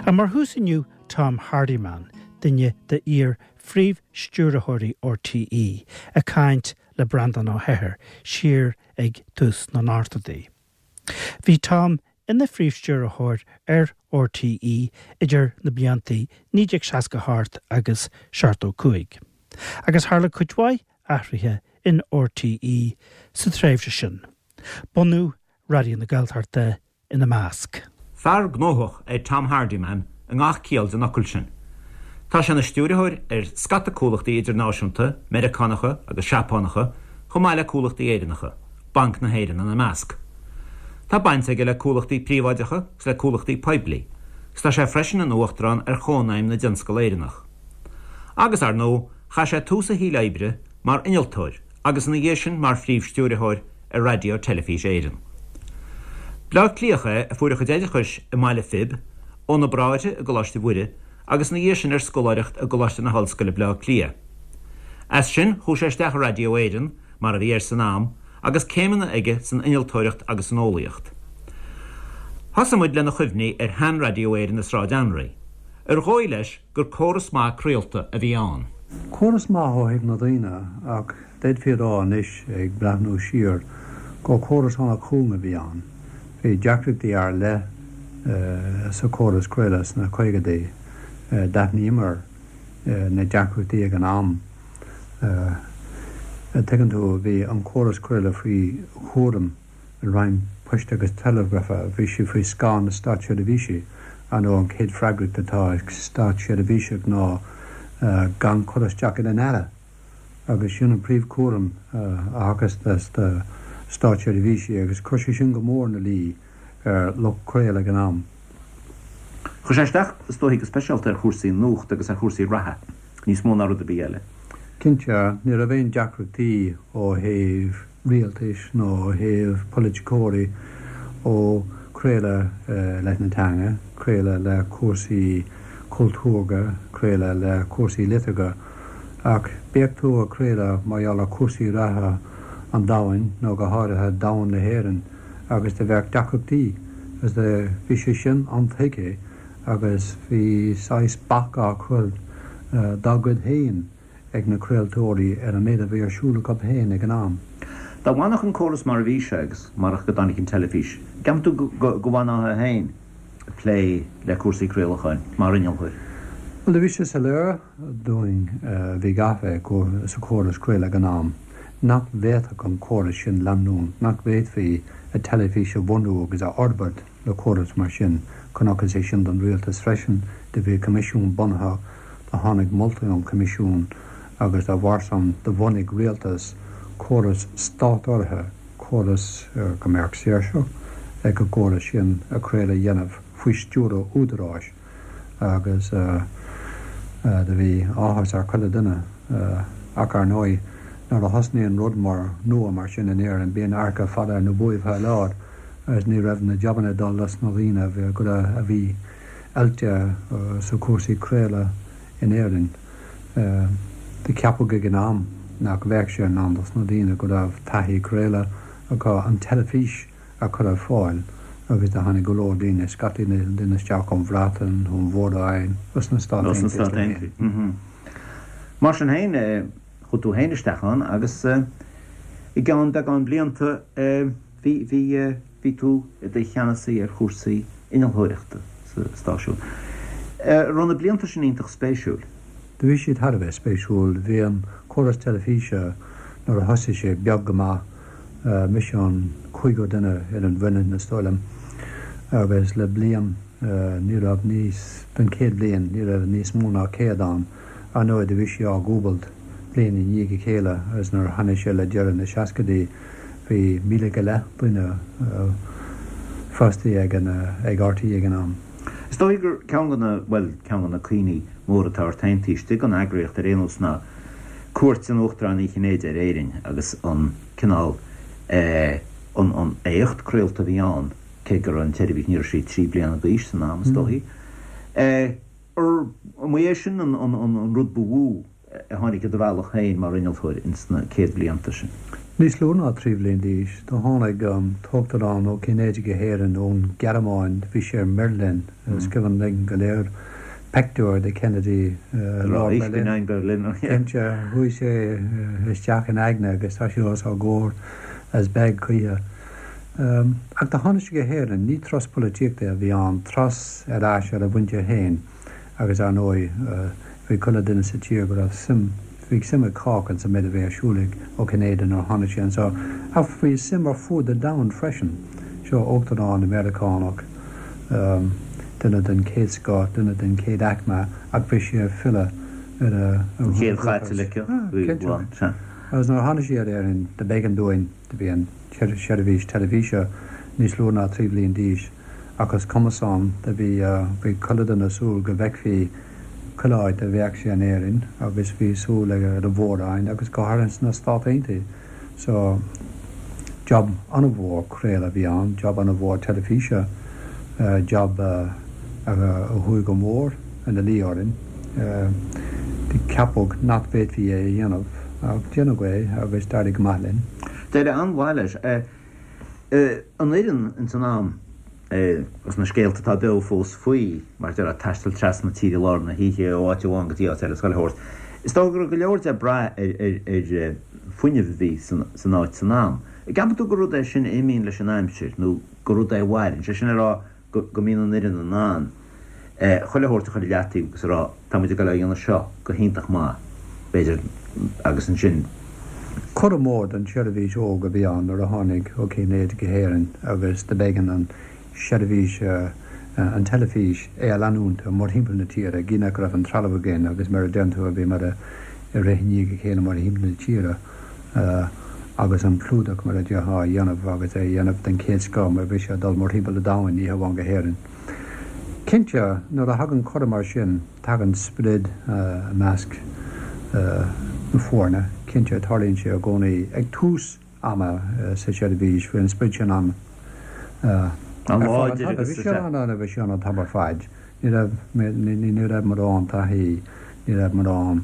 Ach mar thús inniu Tom Hardiman, duine de iar-phríomh-stiúrthóirí RTÉ, ag caint le Breandán Ó hEithir siar ag tús na n-ochtóidí. Bhí Tom ina phríomh-stiúrthóir ar RTÉ idir na blianta 1968 agus 75, agus tharla cuid mhaith athruithe in RTÉ sa tréimhse sin, bunú Raidió na Gaeltachta ina measc. Fear gnóthach é Tom Hardiman i ngach ciall den fhocal sin. Tá sé ina stiúrthóir ar scata comhlachtaí idirnáisiúnta, Meiriceánacha agus Seapánacha, chomh maith le comhlachtaí Éireannacha, Banc na hÉireann ina measc. Tá baint aige le comhlachtaí príobháideacha agus le comhlachtaí poiblí, agus tá sé freisin ina uachtarán ar Chónaidhm na dTionscal Éireannach. Agus, ar ndóigh, chaith sé tús a shaoil oibre mar innealtóir agus ina dhiaidh sin mar phríomh-stiúrthóir ar Raidió Teilifís Éireann. Bleá Cliathach é a fuair a chuid oideachais i mBaile Phib, ó na Bráithre i gColáiste Mhuire agus ina dhiaidh sin ar scoláireacht i gColáiste na hOllscoile Bleá Cliath. As sin chuaigh sé isteach i Raidió Éireann, mar a bhí air san am, agus céimeanna aige san innealtóireacht agus san eolaíocht. Thosaigh muid lena chuimhní ar shean-Raidió Éireann i Sráid Anraí. Ar dhóigh leis gur córas maith craolta a bhí ann. Córas maith ó thaobh na daoine ach d'fhéadfaí a rá anois ag breathnú siar gur córas an-chúng a bhí ann. Bhí deacrachtaí ar leith sa chóras craoladh sna caogaidí. D'aithníomar na deacrachtaí ag an am. Tuigeann tú, bhí an córas craoladh faoi chúram. an Roinn Poist agus Teileagrafa, bhí sí faoi scáth na státseirbhísí. Ar ndóigh, an chéad freagracht atá ag státseirbhíseach ná gan cur isteach ar an Aire, agus sin an príomhchúram a thagas do státseirbhísigh, agus chuir sé sin go mór ina luí ar lucht craoladh ag an am. Chuir sé isteach, is dóichí, go speisialta ar chúrsaí nuachta agus ar chúrsaí reatha, níos mó ná rud ar bith eile. Cinnte, ní raibh aon deacrachtaí ó thaobh rialtais nó ó thaobh polaiticeoirí ó craoladh leis na teanga, craoladh le cúrsaí cultúrtha, craoladh le cúrsaí liteartha. Ach bíodh tú ag craoladh mar gheall ar chúrsaí reatha an domhain nó go háirithe domhan na hÉireann, agus do bheadh deacrachtaí agus do bhí sé sin an-tuigthe agus bhí saghas bac á chur dá gcuid féin ag na craoltóirí ar an méid a bhí ar siúl acu féin ag an am. Dá bhfanfadh an córas mar a bhí sé agus marach go dtáinig an teilifís, an gceapann tú go bhfanfá féin ag plé le cúrsaí craolacháin mar innealtóir? Bhuel, do bhí sé soiléir dúinn a bhí gafa sa chóras craoladh ag an am, nach bhféadfadh an córas sin leanúint, nach bhféadfaí an teilifís a bhunú agus a fhorbairt le córas mar sin. Chonacthas é sin don rialtas freisin. Do bhí coimisiún bunaithe, do tháinig moltaí ón choimisiún agus dá bharr san do bhunaigh rialtas córas stát-urraithe, córas go mbeadh saoirse ag an gcóras sin a craoladh a dhéanamh faoi stiúradh údaráis. agus do bhí áthas ar chuile duine. Ach ar ndóigh, nuair a thosnaíonn rud mór nua mar sin in Éirinn, bíonn adharca fada ar na buaibh a lán agus ní raibh na jabanna ag dul dos na daoine a bhí a bhí oilte sa chúrsaí craoladh in Éirinn. Do ceapadh ag an am nach bheadh sé in ann dos na daoine go raibh taithí craoladh acu an teilifís a chur ar fáil agus do tháinig go leor daoine, scataí daoine isteach ón Bhreatain, ón Mhór-Roinn, os na Stáit Aontaithe. Mar sin féin, chuaigh tú féin isteach ann agus i gceann beagán blianta bhí, bhí, bhí tú i do cheannasaí ar chúrsaí innealtóireachta sa stáisiún. Raibh na blianta sin iontach spéisiúil? Do bhí siad thar a bheith spéisiúil. Bhí an córas teilifíse nuair a thosaigh sé beag go maith. Mise an cúigiú duine ar an bhfoireann is dóigh liom agus le bliain ní raibh níos, don chéad bhliain ní raibh níos mó ná 100 ann. Ar ndóigh do bhí sé á dhúbailt bliain i ndiaidh a chéile agus nuair a tháinig sé le deireadh na seascaidí bhí 1,000 go leith duine fostaithe ag an, ag RTÉ ag an am. Is dóigh gur ceann de na, bhuel, ceann de na cuimhní móra atá ort féin taobh istigh den eagraíocht ar aon nós ná cuairt an Uachtaráin Uí Chinnéide ar Éirinn agus an cineál eh an an éacht craolta a bhí ann, cé go raibh an tseirbhís, ní raibh sí 3 bliana d'aois san am is dóichí. Eh ar an é sin an an an rud ba mhó a tháinig i do bhealach féin mar innealtóir ins na céad bhlianta sin? Níos lú ná 3 bhliain d'aois, do tháinig an tUachtarán Ó Cinnéide go hÉirinn ón Ghearmáin, bhí sé i mBeirlin, is cuimhin linn go léir peictiúr de Kennedy i lár Berlin. Cinnte, chuaigh sé isteach in aigne agus tá sé os ár gcomhair as beag choíche. Ach do tháinig sé go hÉirinn, ní turas polaitíochta a bhí ann, turas ar ais ar a mhuintir féin. Agus ar ndóigh, bhí chuile duine sa tír go raibh suim, bhí suim ag cách insa méid a bhí ar siúl ag Ó Cinnéide nuair a tháinig sé anseo. Ach bhí suim ar fuaid an domhain freisin. Seo Uachtarán Meiriceánach, duine den chéad scoth, duine den chéad aicme, ach bhí sé ag filleadh ar a An chéad Chaitliceach, bhí, bhuel, sea. Agus nuair a tháinig sé ar Éirinn, do b'éigean dúinn, do bhí an tseirbhís teilifíse níos lú ná 3 bhliain d'aois, Ach is cuma san, do bhí, bhí chuile duine ag súil go bhfeicfí chuile áit a bheadh sé in Éirinn agus bhí súil ag ar an Mhór-Roinn agus go háirithe sna Stát Aontaithe. So, job an-mhór craoladh a bhí ann, job an-mhór teilifíse, job a chuaigh go mór ina luí orainn. Ceapadh nach bhféadfaí é a dhéanamh ach déanadh é agus d'éirigh go maith linn. D'éirigh an-mhaith leis. An fhoireann ins an am, agus na scéalta atá beo fós faoi, mar a déarfá, taisteal trasna na tíre i lár na hoíche ó áit amháin go dtí áit eile is chuile shórt. Is dócha go raibh go leor de ag brath ar fuinneamh a bhí san áit san am. An gceapann tú gur rud é sin a imíonn leis an aimsir nó gur rud é a mhaireann, sé sin le rá go mbíonn an fhoireann in ann chuile shórt a chur i leataobh agus a rá tá muid ag dul a dhéanamh seo go hiontach maith, b'fhéidir, agus ansin. Cuireadh mór don tseirbhís óg a bhí ann nuair a tháinig Ó Cinnéide go hÉirinn agus do b'éigean an seirbhís, an teilifís, é a leanúint mórthimpeall na tíre, gidh nach raibh an trealamh againn agus mar a deireann tú bhíomar ag rith i ndiaidh a chéile mórthimpeall na tíre. agus an clúdach mar a déarfá a dhéanamh agus é a dhéanamh den chéad scoth mar bhí sé ag dul mórthimpeall an domhain, ní hamháin go hÉirinn. Cinnte, nuair a thagann cuireadh mar sin, tagann sprid i measc na foirne. Cinnte, tarlaíonn sé i gcónaí ag tús ama sa tseirbhís, bhí an sprid sin ann ar fad an Bhí sé ann, bhí sé ann an t-am ar fad. Ní raibh, ní raibh mórán taithí, ní raibh mórán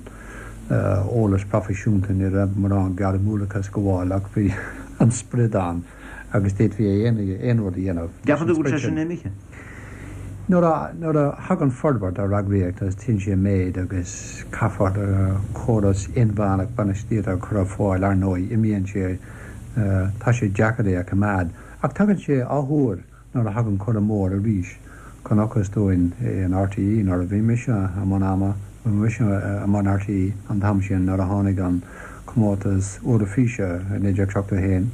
eolas proifisiúnta, ní raibh mórán gairmiúlachas ag gabháil ach bhí an sprid ann agus d'fhéadfaí aon rud a dhéanamh. Ceapann tú go bhfuil sé sin imithe? Nuair a, nuair a thagann forbairt ar eagraíocht agus téann sí i méid agus caithfear córas inmheánach bainistíochta a chur ar fáil, ar ndóigh, imíonn sé, tá sé deacair é a choimeád. Ach tagann sé athuair. Nuair a thagann cuireadh mór arís, chonacthas dúinn in RTÉ nuair a bhí mise i mbun ama, bhí mise i mbun RTÉ an t-am sin nuair a tháinig an comórtas Eoraifíse i 1971,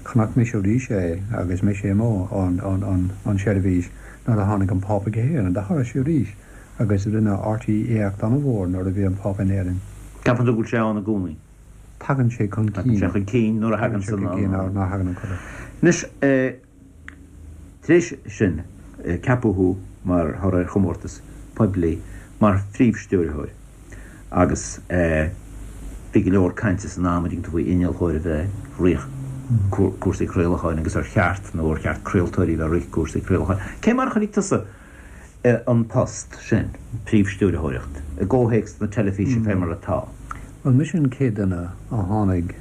chonaic mise arís é agus mise amuigh ón seirbhís nuair a tháinig an Pápa go hÉirinn. Do tharla sé arís agus rinne RTÉ éacht an-mhór nuair a bhí an Pápa in Éirinn. Ceapann tú go bhfuil sé ann i gcónaí? Tagann sé chun cinn. Tagann sé chun cinn nuair a thagann san. Tagann sé chun cinn nuair a thagann an cuireadh. Anois, tar éis sin, ceapadh thú mar thoradh ar chomórtas poiblí mar phríomh-stiúrthóir agus bhí go leor cainte san am, an dtuigeann tú, faoi innealtóir a bheith ag rith cúrsaí craolacháin agus ar cheart nó ar cheart craoltóirí a bheith ag rith cúrsaí craolacháin. Cé mar a chonaic tusa an post sin, príomhstiúrthóireacht, i gcomhthéacs na teilifíse fé mar atá. Bhuel, mise an chéad duine a tháinig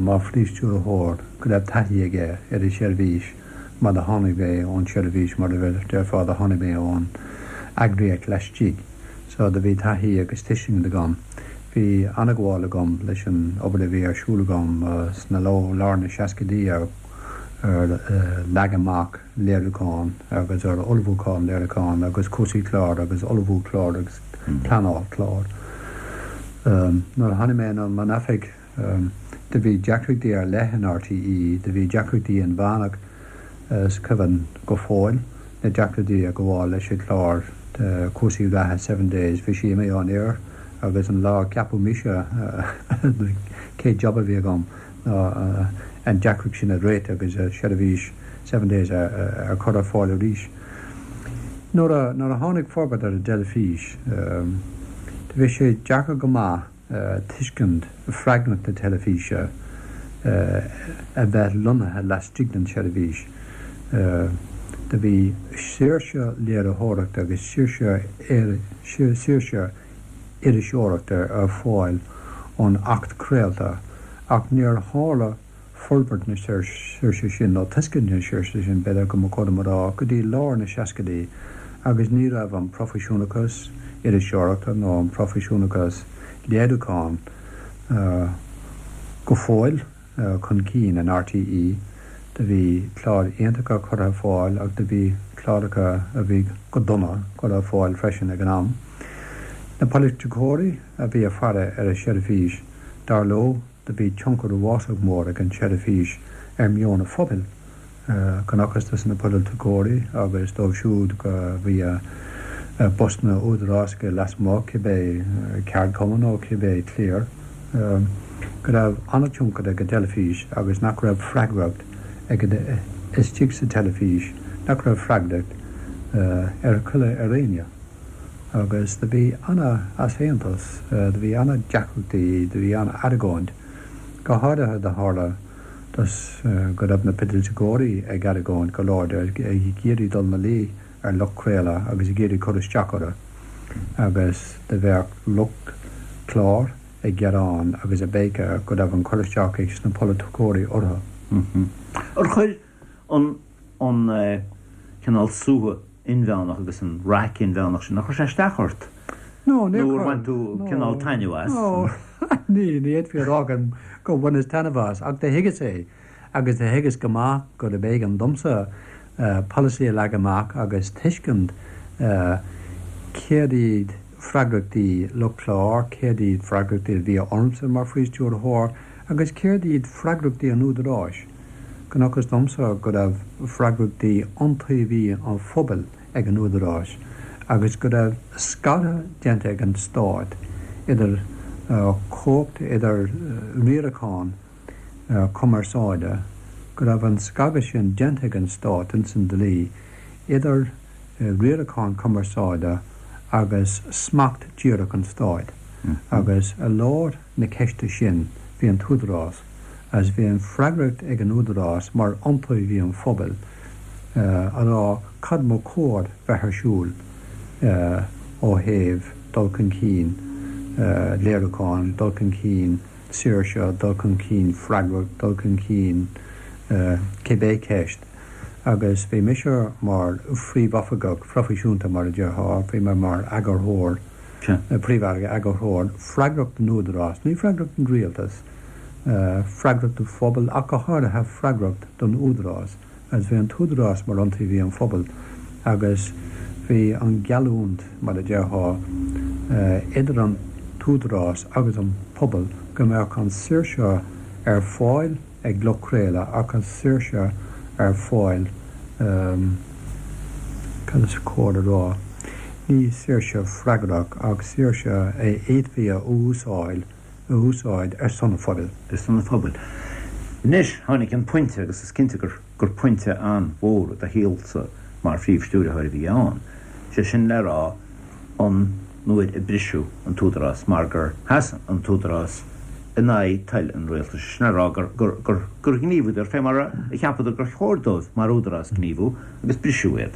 mar phríomhstiúrthóir go raibh taithí aige ar an seirbhís mar do tháinig mé ón tseirbhís, mar a déarfá, do tháinig mé ón eagraíocht laistigh. So do bhí taithí agus tuiscint agam. Bhí an-ghabháil agam leis an obair a bhí ar siúl agam sna lár na seascaidí ar leagan amach léiriúchán agus ar ullmhúchán léiriúchán agus cúrsaí clár agus ullmhú clár agus pleanáil clár. Nuair a tháinig mé i mbun oifig do bhí deacrachtaí ar leith in RTÉ, do bhí deacrachtaí inmheánach is cuimhin go fóill na deacrachtaí ag gabháil leis an chlár cúrsaí reatha Seven Days, bhí sé imithe ón aer agus an lá a ceapadh mise an chéad job a bhí agam ná an deacracht sin a réiteach agus seirbhís Seven Days a chur ar fáil arís. Nuair a nuair a tháinig forbairt ar an dteilifís, do bhí sé deacair go maith tuiscint freagracht na teilifíse a bheith lonnaithe laistigh den tseirbhís. Do bhí saoirse léiritheoireachta agus saoirse saoirse iriseoireachta ar fáil ón Acht Craolta. Ach níor tharla forbairt na saoirse sin, nó tuiscint na saoirse sin, b'fhéidir go mba chóir dom a rá, go dtí lár na seascaidí agus ní raibh an proifisiúnachas iriseoireachta nó an proifisiúnachas léiriúcháin go fóill chun cinn in RTÉ. Do bhí cláir iontacha curtha ar fáil ach do bhí cláracha a bhí go dona curtha ar fáil freisin ag an am. Na polaiticeoirí a bhí ag faire ar an seirbhís, dar leo, do bhí tionchar uafásach mór ag an tseirbhís ar mheon an phobail. Chonacthas dos na polaiticeoirí agus dóibh siúd a bhí i bpostanna údarásacha lasmuigh, cibé ceardchumann nó cibé cliar, go raibh an-tionchar ag an teilifís agus nach raibh freagracht ag an istigh sa teilifís, nach raibh freagracht ar chuile ar éinne. Agus do bhí ana-easaontas, do bhí ana-deacrachtaí, do bhí ana-argóint, go háirithe do tharla dos go raibh na poiliticeoirí ag argóint go láidir, ag iarraidh dul 'na luí ar lucht craoladh agus ag iarraidh cur isteach orthu agus do bheadh lucht clár ag gearán agus ag béiceadh go raibh an cur isteach ag sna polaiticeoirí orthu. Ar chuir an an cineál suaitheadh inmheánach agus an raic inmheánach sin, ar chuir sé isteach ort? No, níor chuir. Nó ar bhain tú cineál taitneamh as? No, ní, ní fhéadfaí a rá gur bhaineas taitneamh as, ach do thuigeas é, agus do thuigeas go maith gurb éigean domsa polasaí a leagan amach agus tuiscint céard iad freagrachtaí lucht clár, céard iad freagrachtaí a bhí ormsa mar Phríomh-Stiúrthóir agus céard iad freagrachtaí an Údaráis. Chonacthas domsa go raibh freagrachtaí iontaobhaí an phobail ag an Údarás agus go raibh scaradh déanta ag an Stát idir chumhacht, idir riarachán cumarsáide, go raibh an scagadh sin déanta ag an Stát ins an dlí idir riarachán cumarsáide agus smacht díreach an Stáit agus i lár na ceiste sin bhí an tÚdarás agus bhí an freagracht ag an Údarás mar iontaobhaí an phobail a rá cad ba chóir bheith ar siúl ó thaobh dul chun cinn léiriúcháin, dul chun cinn saoirse, dul chun cinn freagracht, dul chun cinn cibé ceist. Agus bhí mise mar phríomhoifigeach proifisiúnta mar a déarfá, bhí mé mar eagarthóir, príomh-eagarthóir, freagrach don Údarás, ní freagrach don rialtas, freagrach don phobal ach go háirithe freagrach don Údarás agus bhí an tÚdarás mar iontaobhaí an phobail agus bhí an gheallúint, mar a déarfá, idir an tÚdarás agus an pobal go mbeadh an saoirse ar fáil ag lucht craoladh ach an saoirse ar fáil, cad is cóir a rá, ní saoirse freagrach ach saoirse a fhéadfaí a úsáil, a úsáid ar son an phobail. Ar son an phobail. Anois, tháinig an pointe, agus is cinnte gur gur pointe an-mhór i do shaolsa mar Phríomh-Stiúrthóir a bhí ann, sé sin le rá an nuair a briseadh an tÚdarás mar gur sheas an tÚdarás in aghaidh toil an rialtais, sé sin le rá gur gur gur gur ghníomhaíodar fé mar a cheapadar gur chóir dóibh mar Údarás gníomhú agus briseadh iad.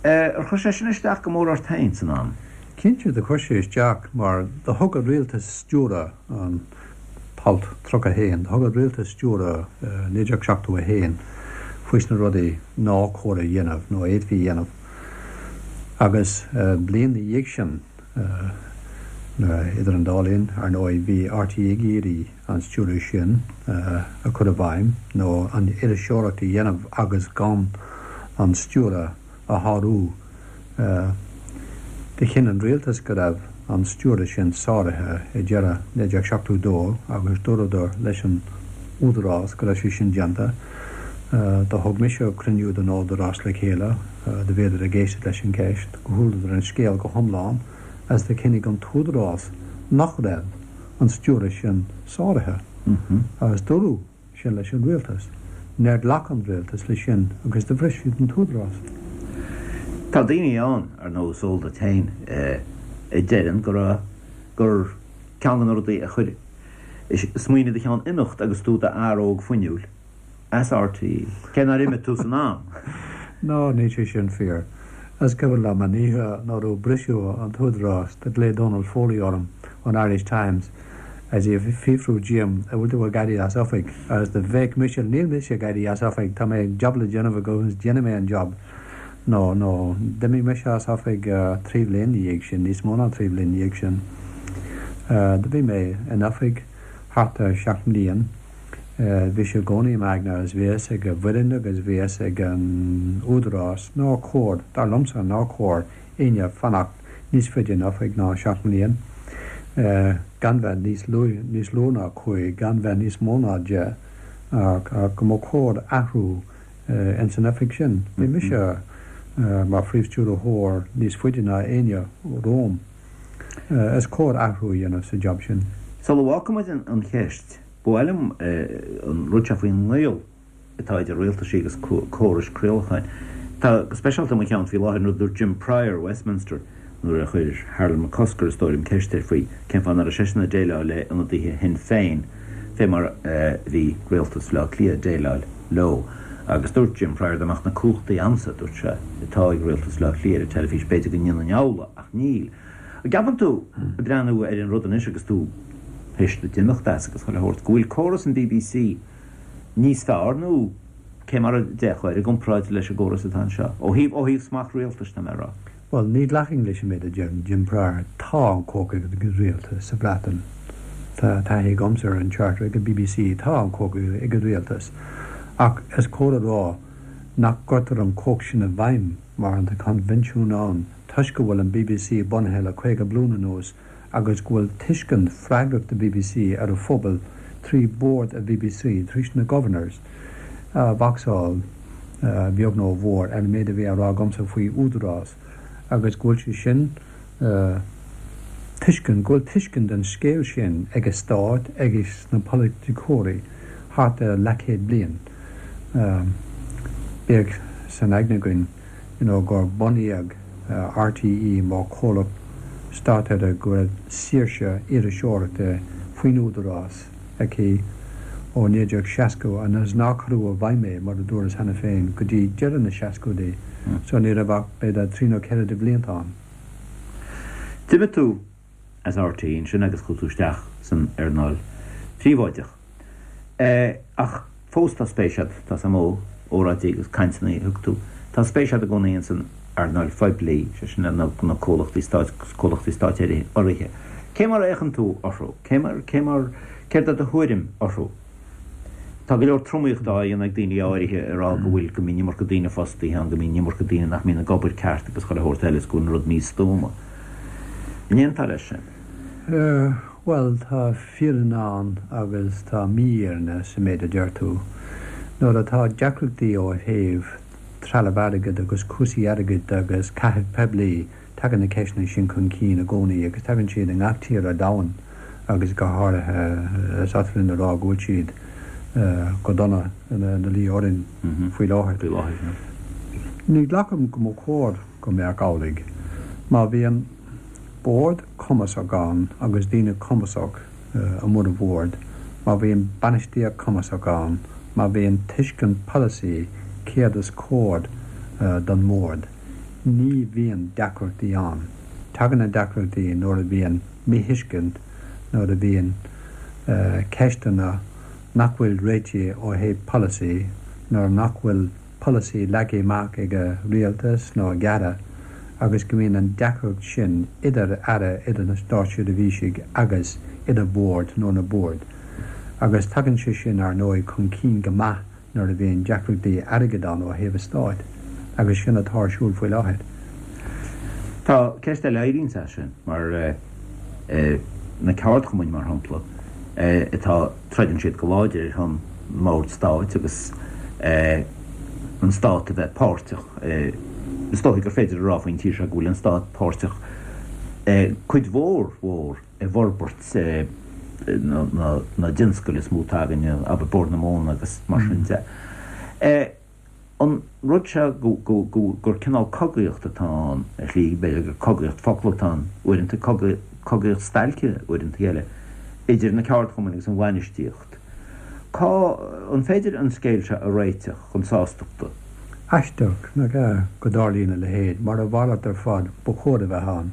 Ar chuir sé sin isteach go mór ort féin san am? Cinnte do chuir sé isteach mar do thug an rialtas stiúradh an t-alt 31, do thug an rialtas stiúradh 1971 faoi sna rudaí nár chóir a dhéanamh nó a fhéadfaí a dhéanamh agus bliain na dhiaidh sin idir an dá linn, ar ndóigh, bhí RTÉ ag iarraidh an stiúradh sin a chur i bhfeidhm nó an iriseoireacht a dhéanamh agus gan an stiúradh a shárú. Do chinn an rialtas go raibh an stiúradh sin sáraithe ag deireadh 1972 agus dúradar leis an Údarás go raibh sé sin déanta. Do thug mise cruinniú den Údarás le chéile, do bhíodar ag éisteacht leis an gceist, do chualadar an scéal go hiomlán agus do chinnigh an tÚdarás nach raibh an stiúradh sin sáraithe agus dúradh sin leis an rialtas. Níor ghlac an rialtas leis sin agus do bhris siad an tÚdarás. Tá daoine ann, ar ndóigh, is eol duit féin, a deireann go raibh, gur ceann de na rudaí a chuir smaoineamh i do cheann imeacht agus tú i d'fhear óg fuinniúil as RTÉ, cé nár imigh tú san am. Ná, níl sé sin fíor. Is cuimhin liom an oíche nuair a briseadh an tÚdarás, do ghlaoigh Donal Foley orm ón Irish Times. Agus í ag fiafrú díom, an bhfuil tú ag éirí as oifig? Agus do bhéic mise, níl mise ag éirí as oifig, tá mé job le déanamh agam agus déanfaidh mé an job. No, no, d'imigh mise as oifig 3 bhliain ina dhiaidh sin, níos mó ná 3 bhliain ina dhiaidh sin. Do bhí mé in oifig thart ar 7 mbliain. Bhí sé i gcónaí i m'aigne agus bhí a fhios ag an bhfoireann agus bhí a fhios ag an údarás nár chóir, dar liomsa, nár chóir éinne fanacht níos faide in oifig ná 7 mbliain, gan bheith níos lú, níos lú ná 5, gan bheith níos mó ná 10, ach go mba chóir athrú ins an oifig sin. Bhí mise mar phríomh-stiúrthóir níos faide ná éinne romham. Is cóir athrú a dhéanamh sa job sin. Sula bhfágfaimid an cheist, ba mhaith liom an rud seo faoin ngaol atá idir rialtaisí agus córais craolacháin. Tá go speisialta i mo cheann faoi láthair an rud a dúirt Jim Prior, Westminster, nuair a chuir Harold McCusker, is dóigh liom, ceist air faoi cén fáth nach raibh seisean ag déileáil le ionadaithe Shinn Féin fé mar a bhí rialtas Bhaile Átha Cliath ag déileáil leo. Agus dúirt Jim Prior dá mbeadh na cumhachtaí a'msa, dúirt sé, atá ag rialtas Bhaile Átha Cliath ar an teilifís, b'fhéidir go ndéanfainn amhlaidh, ach níl. An gceapann tú, ag breathnú ar an rud anois agus tú théis duit imeacht as agus chuile shórt, go bhfuil córas an bbc níos fearr nó cé mar a d'fhéachfá air i gcomparáid leis an gcóras atá anseo, ó thaobh, ó thaobh smacht rialtais, tá mé a rá? Bhuel, ní ghlacfainn leis an méid a deir Jim Prior. Tá an chumhacht ag an rialtas sa Bhreatain. Tá taithí agamsa ar an Charter ag an bbc, tá an chumhacht ag an rialtas. Ach is cóir a rá nach gcuirtear an chumhacht sin i bhfeidhm mar tá coinbhinsiún ann toisc go bhfuil an bbc bunaithe le 50 bliain anuas agus go bhfuil tuiscint freagracht an bbc ar a phobal trí bhord an bbc, trí na governors, a bhocsáil, a bheag nó a mhór, ar an méid a bhí á rá agamsa faoi údarás agus go bhfuil sé sin tuiscint, go bhfuil tuiscint den scéal sin ag an stát agus na polaiticeoirí thart ar leathchéad bliain. Bíodh san aigne againn you know gur bunaíodh RTÉ mar chomhlacht státurraithe go raibh saoirse iriseoireachta faoin údarás aici ó 1960 agus nár cuireadh i bhfeidhm é, mar a dúras cheana féin, go dtí deireadh na seascóidí, so ní raibh ach b'fhéidir trí nó ceithre de bhlianta ann. D'imigh tú as RTÉ ansin agus chuaigh tú isteach san earnáil phríobháideach. Ach fós tá spéis agat, tá 's a'm ó óráidí agus cainteanna a thug tú, tá spéis agat i gcónaí ins an earnáil phoiblí, sé sin na comhlachtaí stáit agus comhlachtaí stáit urraithe. Cé mar a fhéachann tú orthu? Cé mar, cé mar, céard é do thuairim orthu? Tá go leor tromaíochta á dhéanamh ag daoine áirithe ag rá go bhfuil, go mbíonn iomarca daoine fostaithe ann, go mbíonn iomarca daoine nach mbíonn ag obair ceart agus chuile shórt eile is go bhfuil an rud místuama. An aontófá leis sin? Bhuel, tá fírinne ann agus tá mífhírinne sa méid a deir tú. Nuair atá deacrachtaí ó thaobh trealamh airgid agus cúrsaí airgid agus caitheamh poiblí, tagann na ceisteanna sin chun cinn i gcónaí agus tagann siad i ngach tír ar domhan agus go háirithe is oth linn a rá go bhfuil siad go dona ina luí orainn faoi láthair. Ní ghlacaim go mba chóir go mbeadh amhlaidh. Má bhíonn. Bord cumasach ann agus daoine cumasach i mbun an bhoird, má bhíonn bainistíocht cumasach ann, má bhíonn tuiscint polasaí céard is cóir don mbord, ní bhíonn deacrachtaí ann. Tagann na deacrachtaí nuair a bhíonn míthuiscint, nuair a bhíonn ceisteanna nach bhfuil réitithe ó thaobh polasaí, nuair nach bhfuil. polasaí leagtha amach ag an rialtas nó ag aire agus go mbíonn an deacracht sin idir aire, idir na státseirbhísigh agus idir bord nó na boird. Agus tagann sé sin, ar ndóigh, chun cinn go maith nuair a bhíonn deacrachtaí airgid ann ó thaobh an stáit. Agus sin atá ar siúl faoi láthair. Tá ceist eile a éiríonns as sin, mar na ceardchumainn, mar shampla, atá. Troideann siad go láidir ar son na mbord stáit agus an stát a bheith páirteach. Is dóichí gur féidir a rá faoin tír seo go bhfuil an stát páirteach cuid mhór mhór i bhforbairt na dtionscal is mó atá againne, abair Bord na Móna agus mar sin de. An rud seo gur cineál cogaíocht atá ann ar shlí, b'fhéidir gur cogaíocht focal atá ann uaireanta, cogaíocht stailce uaireanta eile, idir na ceardchumainn agus an bhainistíocht. Cá, an féidir an scéal seo a réiteach chun sástachta? Aisteach, nach ea, go dtarlaíonn a leithéid, mar a mhalairt ar fad ba chóir a bheith ann.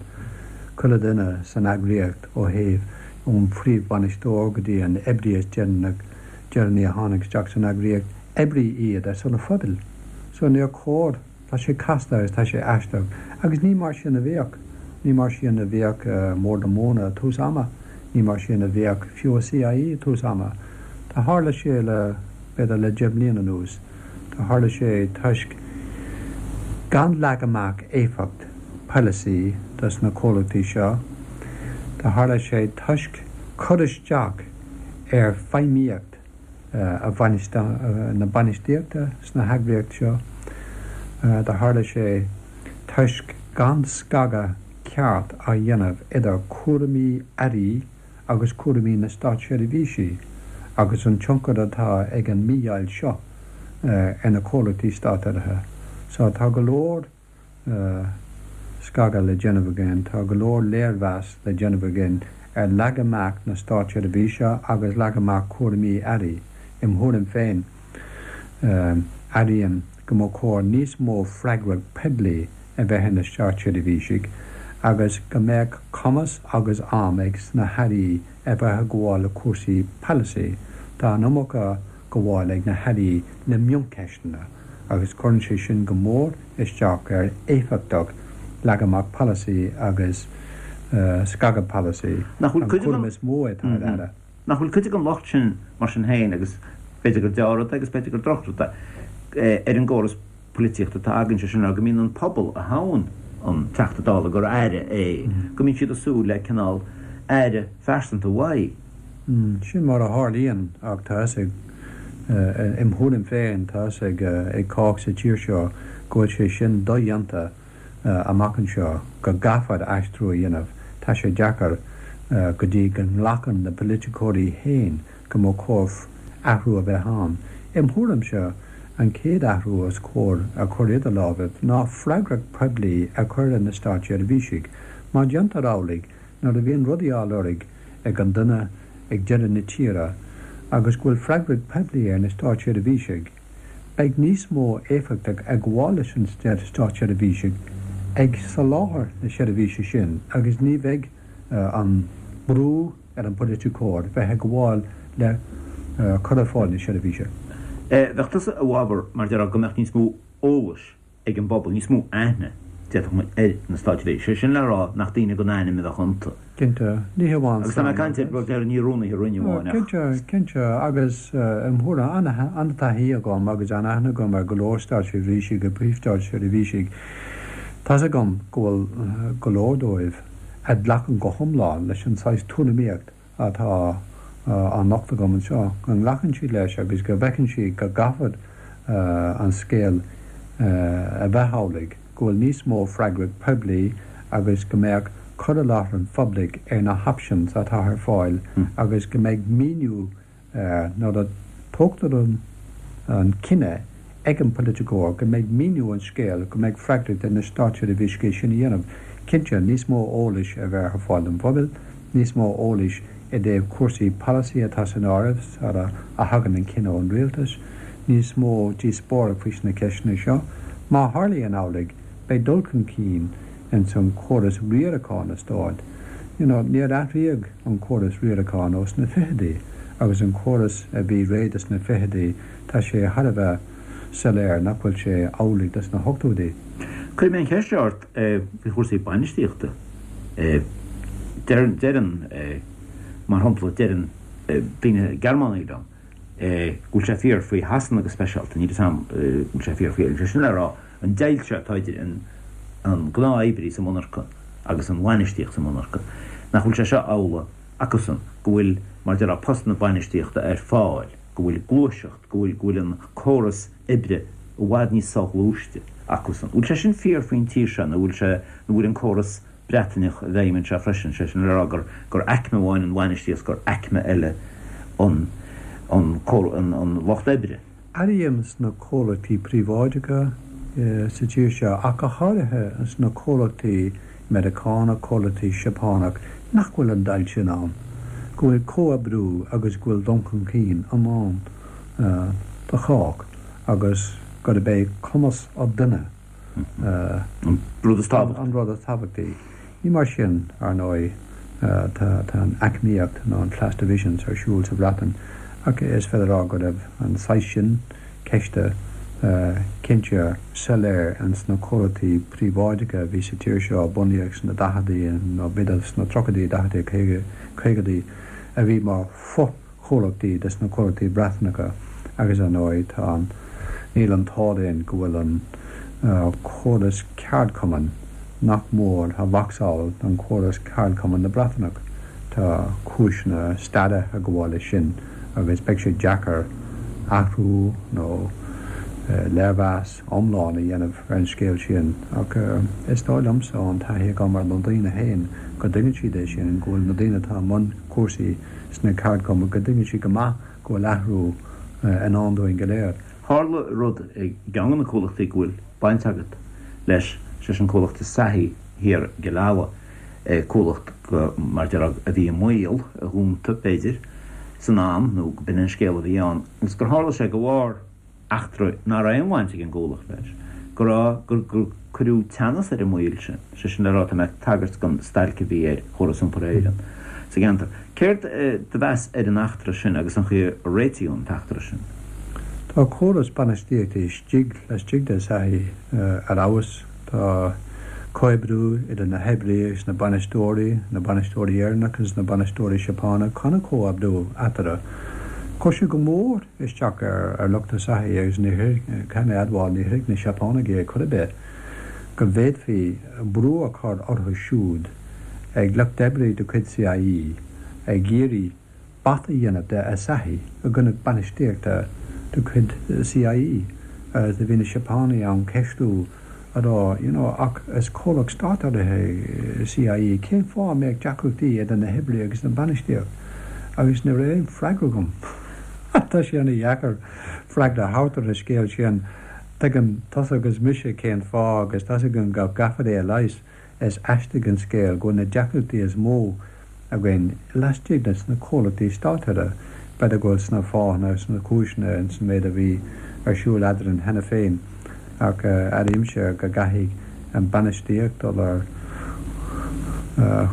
Chuile dhuine san eagraíocht ó thaobh. Ón phríomhbhainisteoir go dtí an oibrí is deireanaí a tháinig isteach san eagraíocht, oibrí iad ar son an phobail. So níor chóir, tá sé casta agus tá sé aisteach agus ní mar sin a bhíodh. Ní mar sin a bhíodh i mBord na Móna ag tús ama, ní mar sin a bhíodh fiú i CIE ag tús ama. Do tharla sé le, b'fhéidir le 10 mbliana anuas, do tharla sé toisc gan leagan amach éifeacht polasaí dos na comhlachtaí seo. Do tharla sé toisc cur isteach ar feidhmíocht na bainistíochta sna heagraíocht seo. Do tharla sé toisc gan scagadh ceart á dhéanamh idir cúraimí airí agus cúraimí na státseirbhísí agus an tionchar atá ag an mídheighilt seo ar na comhlachtaí státurraithe. So tá go leor scagadh le déanamh againn, tá go leor léirmheas le déanamh againn ar leagan amach na státseirbhíse agus leagan amach cúraimí airí. Im thuairim féin, airím go mba chóir níos mó freagracht poiblí a bheith ar na státseirbhísigh agus go mbeadh cumas agus am ag sna hairí a bheith ag gabháil le cúrsaí polasaí. Tá an iomarca gabháil ag na hairí le mioncheisteanna agus cuireann sé sin go mór isteach ar éifeachtacht leagan amach polasaí agus scagadh polasaí, an cúram is mó atá ar aire. Nach bhfuil cuid den locht sin mar sin féin, agus b'fhéidir gur dea-rud é agus b'fhéidir gur drochrud é, ar an gcóras polaitíochta atá againn, sé sin le rá go mbíonn an pobal a thoghann an Teachta Dála gur aire é, go mbíonn siad ag súil le cineál aire phearsanta uaidh. Sin mar a tharlaíonn ach tá fhios ag, im thuairim féin, tá fhios ag cách sa tír seo go bhfuil sé sin dodhéanta amach anseo, go gcaithfear aistriú a dhéanamh. Tá sé deacair go dtí go nglacann na politiceoirí féin go mba chóir athrú a bheith ann. Im thuairimse, an chéad athrú is cóir a chur idir lámhaibh ná freagracht poiblí a chur ar na státseirbhísigh. Má déantar amhlaidh, nuair a bhíonn rudaí á lorg ag an duine ag deireadh na tíre agus go bhfuil freagracht poiblí ar na státseirbhísigh, beidh níos mó éifeachtacht ag gabháil leis an státseirbhísigh ag soláthar na seirbhíse sin agus ní bheidh an brú ar an bpoiliticeoir bheith ag gabháil le cur ar fáil na seirbhíse. Bheadh tusa i bhfabhar, mar déarfá, go mbeadh níos mó eolais ag an bpobal, níos mó aithne, déarfadh muid, ar na státseirbhísigh, sé sin le rá nach daoine gan ainm a bheadh iontu. Cinnte, ní hamháin Agus tá mé ag caint ar, bhuel, déarfainn, ní rúnaithe roinne amháin ach. Cinnte, cinnte, agus im thuairim, an-taithí agam agus an-aithne agam ar go leor státseirbhísigh agus príomh-státseirbhísigh. Tá's agam go bhfuil go leor dóibh a ghlacann go hiomlán leis an saghas tuairimíocht atá á nochtadh agam anseo, go nglacann siad leis agus go bhfeiceann siad go gcaithfear an scéal a bheith amhlaidh, go bhfuil níos mó freagracht poiblí agus go mbeadh cur i láthair an phoiblí ar na hoptions atá ar fáil agus go mbeidh míniú Nuair a tógtar an cinneadh ag an bpoiliticeoir go mbeidh míniú an scéil, go mbeidh freagracht ar na státseirbhísigh é sin a dhéanamh. Cinnte, níos mó eolais a bheith ar fáil don phobal, níos mó eolais i dtaobh cúrsaí polasaí atá san áireamh sara a thagann an cinneadh ón rialtas, níos mó díospóireacht faoi na ceisteanna seo. Má tharlaíonn amhlaidh, beidh dul chun cinn ins an chóras riaracháin an stáit. You know, níor athraíodh an córas riaracháin ó sna fichidí agus an córas a bhí réidh dos na fichidí, tá sé thar a bheith soiléir nach bhfuil sé amhlaidh dos na hochtóidí. Cuirfidh mé an cheist seo ort faoi chúrsaí bainistíochta. Deireann, deireann, mar shampla, deireann daoine Gearmánaigh liom go bhfuil sé fíor faoi Shasana go speisialta, níl a fhios agam go bhfuil sé fíor faoi Éirinn, sé sin le rá, an deighilt seo atá idir an an gnáth-oibrí sa mhonarcha agus an bhainistíocht sa mhonarcha, nach bhfuil sé seo amhlaidh acusan, go bhfuil, mar a déarfá, postanna bainistíochta ar fáil, go bhfuil gluaiseacht, go bhfuil, go bhfuil an córas oibre i bhfad níos soghluaiste acusan. Bhfuil sé sin fíor faoin tír seo nó bhfuil sé, nó bhfuil an córas Breataineach i bhfeidhm anseo freisin, sé sin le rá gur, gur aicme amháin an bhainistíocht, gur aicme eile an, an, an, an lucht oibre? Airím sna comhlachtaí príobháideacha sa tír seo, ach go háirithe sna comhlachtaí Meiriceánach, comhlachtaí Seapánach, nach bhfuil an deighilt sin ann, go bhfuil comhoibriú agus go bhfuil dul chun cinn i ndán do chách agus gurb é cumas an duine an rud is tábhachtaí. Ní mar sin, ar ndóigh. Tá an aicmíocht nó an class divisions ar siúl sa Bhreatain ach is féidir a rá go raibh an saghas sin ceiste cinnte soiléir ins na comhlachtaí príobháideacha a bhí sa tír seo a bunaíodh sna daicheadaí nó b'fhéidir sna tríochaidí, daicheadaí, caogaidí a bhí mar fho-chomhlachtaí des na comhlachtaí Breatanacha agus ar ndóigh tá an, níl an t-ádh linn go bhfuil an córas ceardchumainn nach mór a mhacasamhail den chóras ceardchumainn na Breatanach. Tá cúiseanna staire ag gabháil leis sin agus beidh sé deacair athrú nó léirmheas iomlán a dhéanamh ar an scéal sin ach is dóigh liomsa ón taithí agam ar na daoine féin go dtuigeann siad é sin, go bhfuil na daoine atá i mbun cúrsaí sna ceardchumainn, go dtuigeann siad go maith go bhfuil athrú i ndán dúinn go léir. Tharla rud i gceann de na comhlachtaí go bhfuil baint agat leis, sé sin comhlacht Asahi thiar i gCill Ala, comhlacht go, mar déarfá, a bhí i mbaol a dhúnta, b'fhéidir, san am, nó go b'in an scéal a bhí ann, agus gur tharla sé de bharr eachtra nach raibh aon bhaint ag an gcomhlacht leis, go raibh, gur, gur cuireadh teannas ar an mbaol sin, sé sin le rá, tá mé ag tagairt don stailc a bhí ar Chóras Iompair Éireann sa gceantar. Céard do mheas ar an eachtra sin agus an chaoi a réitíodh an t-eachtra sin? Tá córas bainistíochta istigh laistigh de Asahi ar fheabhas. Tá comhoibriú idir na hoibrithe agus na bainisteoirí, na bainisteoirí Éireannacha agus na bainisteoirí Seapánacha, an-chomhoibriú eatarthu. Chuir sé go mór isteach ar lucht Asahi agus ní caithfidh mé a admháil, ní thuig na Seapánaigh é chor ar bith, go bhféadfaí brú a chur orthu siúd ag lucht oibre de chuid CIE ag iarraidh bata a dhéanamh de Asahi i gcoinne bainistíochta de chuid CIE agus do bhí na Seapánaigh ann ceistiú a rá you know ach is comhlacht státurraithe é CIE cén fáth a mbeadh deacrachtaí idir na hoibrithe agus na bainistíocht agus ní raibh aon freagra agam. Tá sé ana dheacair freagra a thabhairt ar an scéal sin. Tuigeann tusa agus mise cén fáth agus tá's againn go gcaithfear é a leigheas. Is aisteach an scéal go bhfuil na deacrachtaí is mó againn laistigh de sna comhlachtaí státurraithe. B'fhéidir go bhfuil sna fáthanna agus sna cúiseanna ins an méid a bhí ar siúl eadrainn cheana féin ach airímse go gcaithfidh an bainistíocht dul ar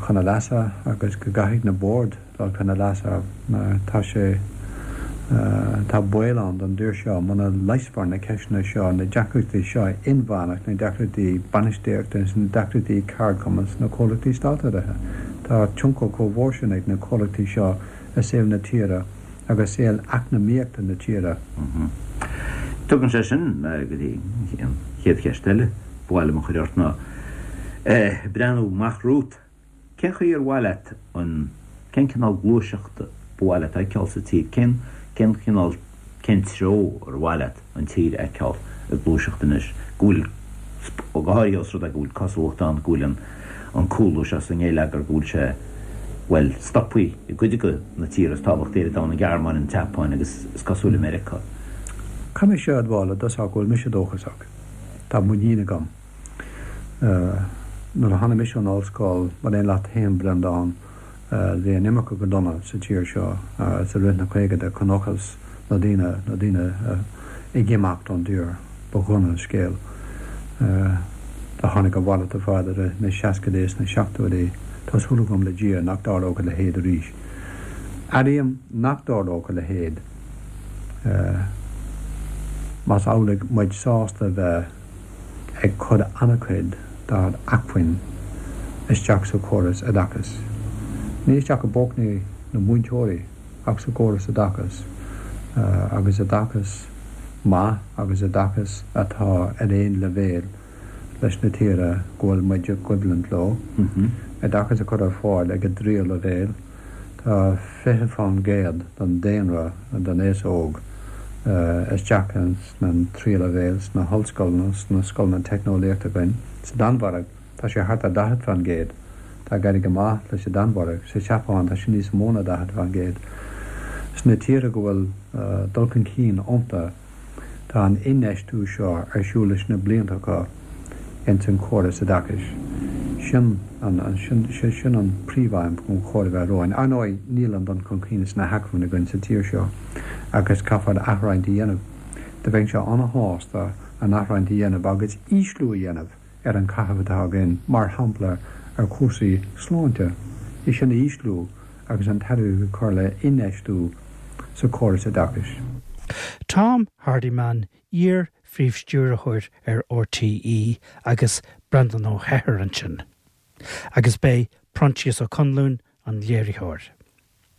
chun a leasa agus go gcaithfidh na boird dul chun a leasa mar tá sé, tá baol ann don dtír seo muna leigheasfar na ceisteanna seo, na deacrachtaí seo inmheánach, na deacrachtaí bainistíochta agus na deacrachtaí ceardchumann sna comhlachtaí státurraithe. Tá tionchar chomh mhór sin ag na comhlachtaí seo i saol na tíre agus saol eacnamaíochta na tíre. Tugann sé sin mé go dtí an chéad cheist eile ba mhaith liom a chur ort ná, breathnú amach romhat, Cén chaoi ar mhaith leat an, cén cineál gluaiseachta ba mhaith leat a fheiceáil sa tír? Cén, cén cineál, cén treo ar mhaith leat an tír a fheiceáil ag gluaiseacht anois? Go bhfuil, go háirithe os rud é go bhfuil cosúlacht ann go bhfuil an, an cúlú seo sa ngeilleagar, go bhfuil sé, bhuel, stoptha i gcuid de na tíortha is tábhachtaí ar an domhan, an Ghearmáin, an tSeapáin agus is cosúil i Meiriceá. Caithfidh mise a admháil i dtosach go bhfuil mise dóchasach. Tá muinín agam. Nuair a tháinig mise ón ollscoil, mar aon leat féin, Breandán, bhí an imirce go dona sa tír seo i rith na caogaidí, chonacthas na daoine, na daoine ag imeacht ón dtír, ba dhona an scéal. Do tháinig a mhalairt ar fad i rith na seascaidí is na seachtóidí. Tá súil agam le Dia nach dtarlódh a leithéid arís. Airím nach dtarlódh a leithéid más amhlaidh muid sásta a bheith ag cur an-chuid dár acmhainn isteach sa chóras oideachais. Ní isteach i bpócaí na múinteoirí ach sa gcóras oideachais agus oideachas maith agus oideachas atá ar aon leibhéal leis na tíortha go bhfuil muid i gcoimhlint leo. Oideachas a chur ar fáil ag an dtríú leibhéal. Tá 20% den daonra den aos óg isteach sna tríú leibhéal, sna hollscoileanna, sna scoileanna teicneolaíochta againn. Sa Danmhairg, tá sé thart ar 40%. Tá ag éirí go maith leis an Danmhairg. Sa tSeapáin, tá sé níos mó ná 40%. Sna tíortha go bhfuil dul chun cinn iontu, Tá an infheistiú seo ar siúl leis na blianta acu ins an córas oideachais. Sin an, sin, sé sin an príomhaidhm gur chóir a bheith romhainn. Ar ndóigh, níl an dul chun cinn sna hacmhainní againn sa tír seo agus caithfear athroinnt a dhéanamh. Do bheinnse an-shásta an athroinnt a dhéanamh agus ísliú a dhéanamh ar an caitheamh atá againn, mar shampla, ar chúrsaí sláinte. é sin a ísliú agus an t-airgead a chur le infheistiú sa chóras oideachais. Tom Hardiman, iar-Phríomh-Stiúrthóir ar RTÉ agus Breandán Ó hEithir ansin. Agus b'é Proinsias Ó Conluain an léiritheoir.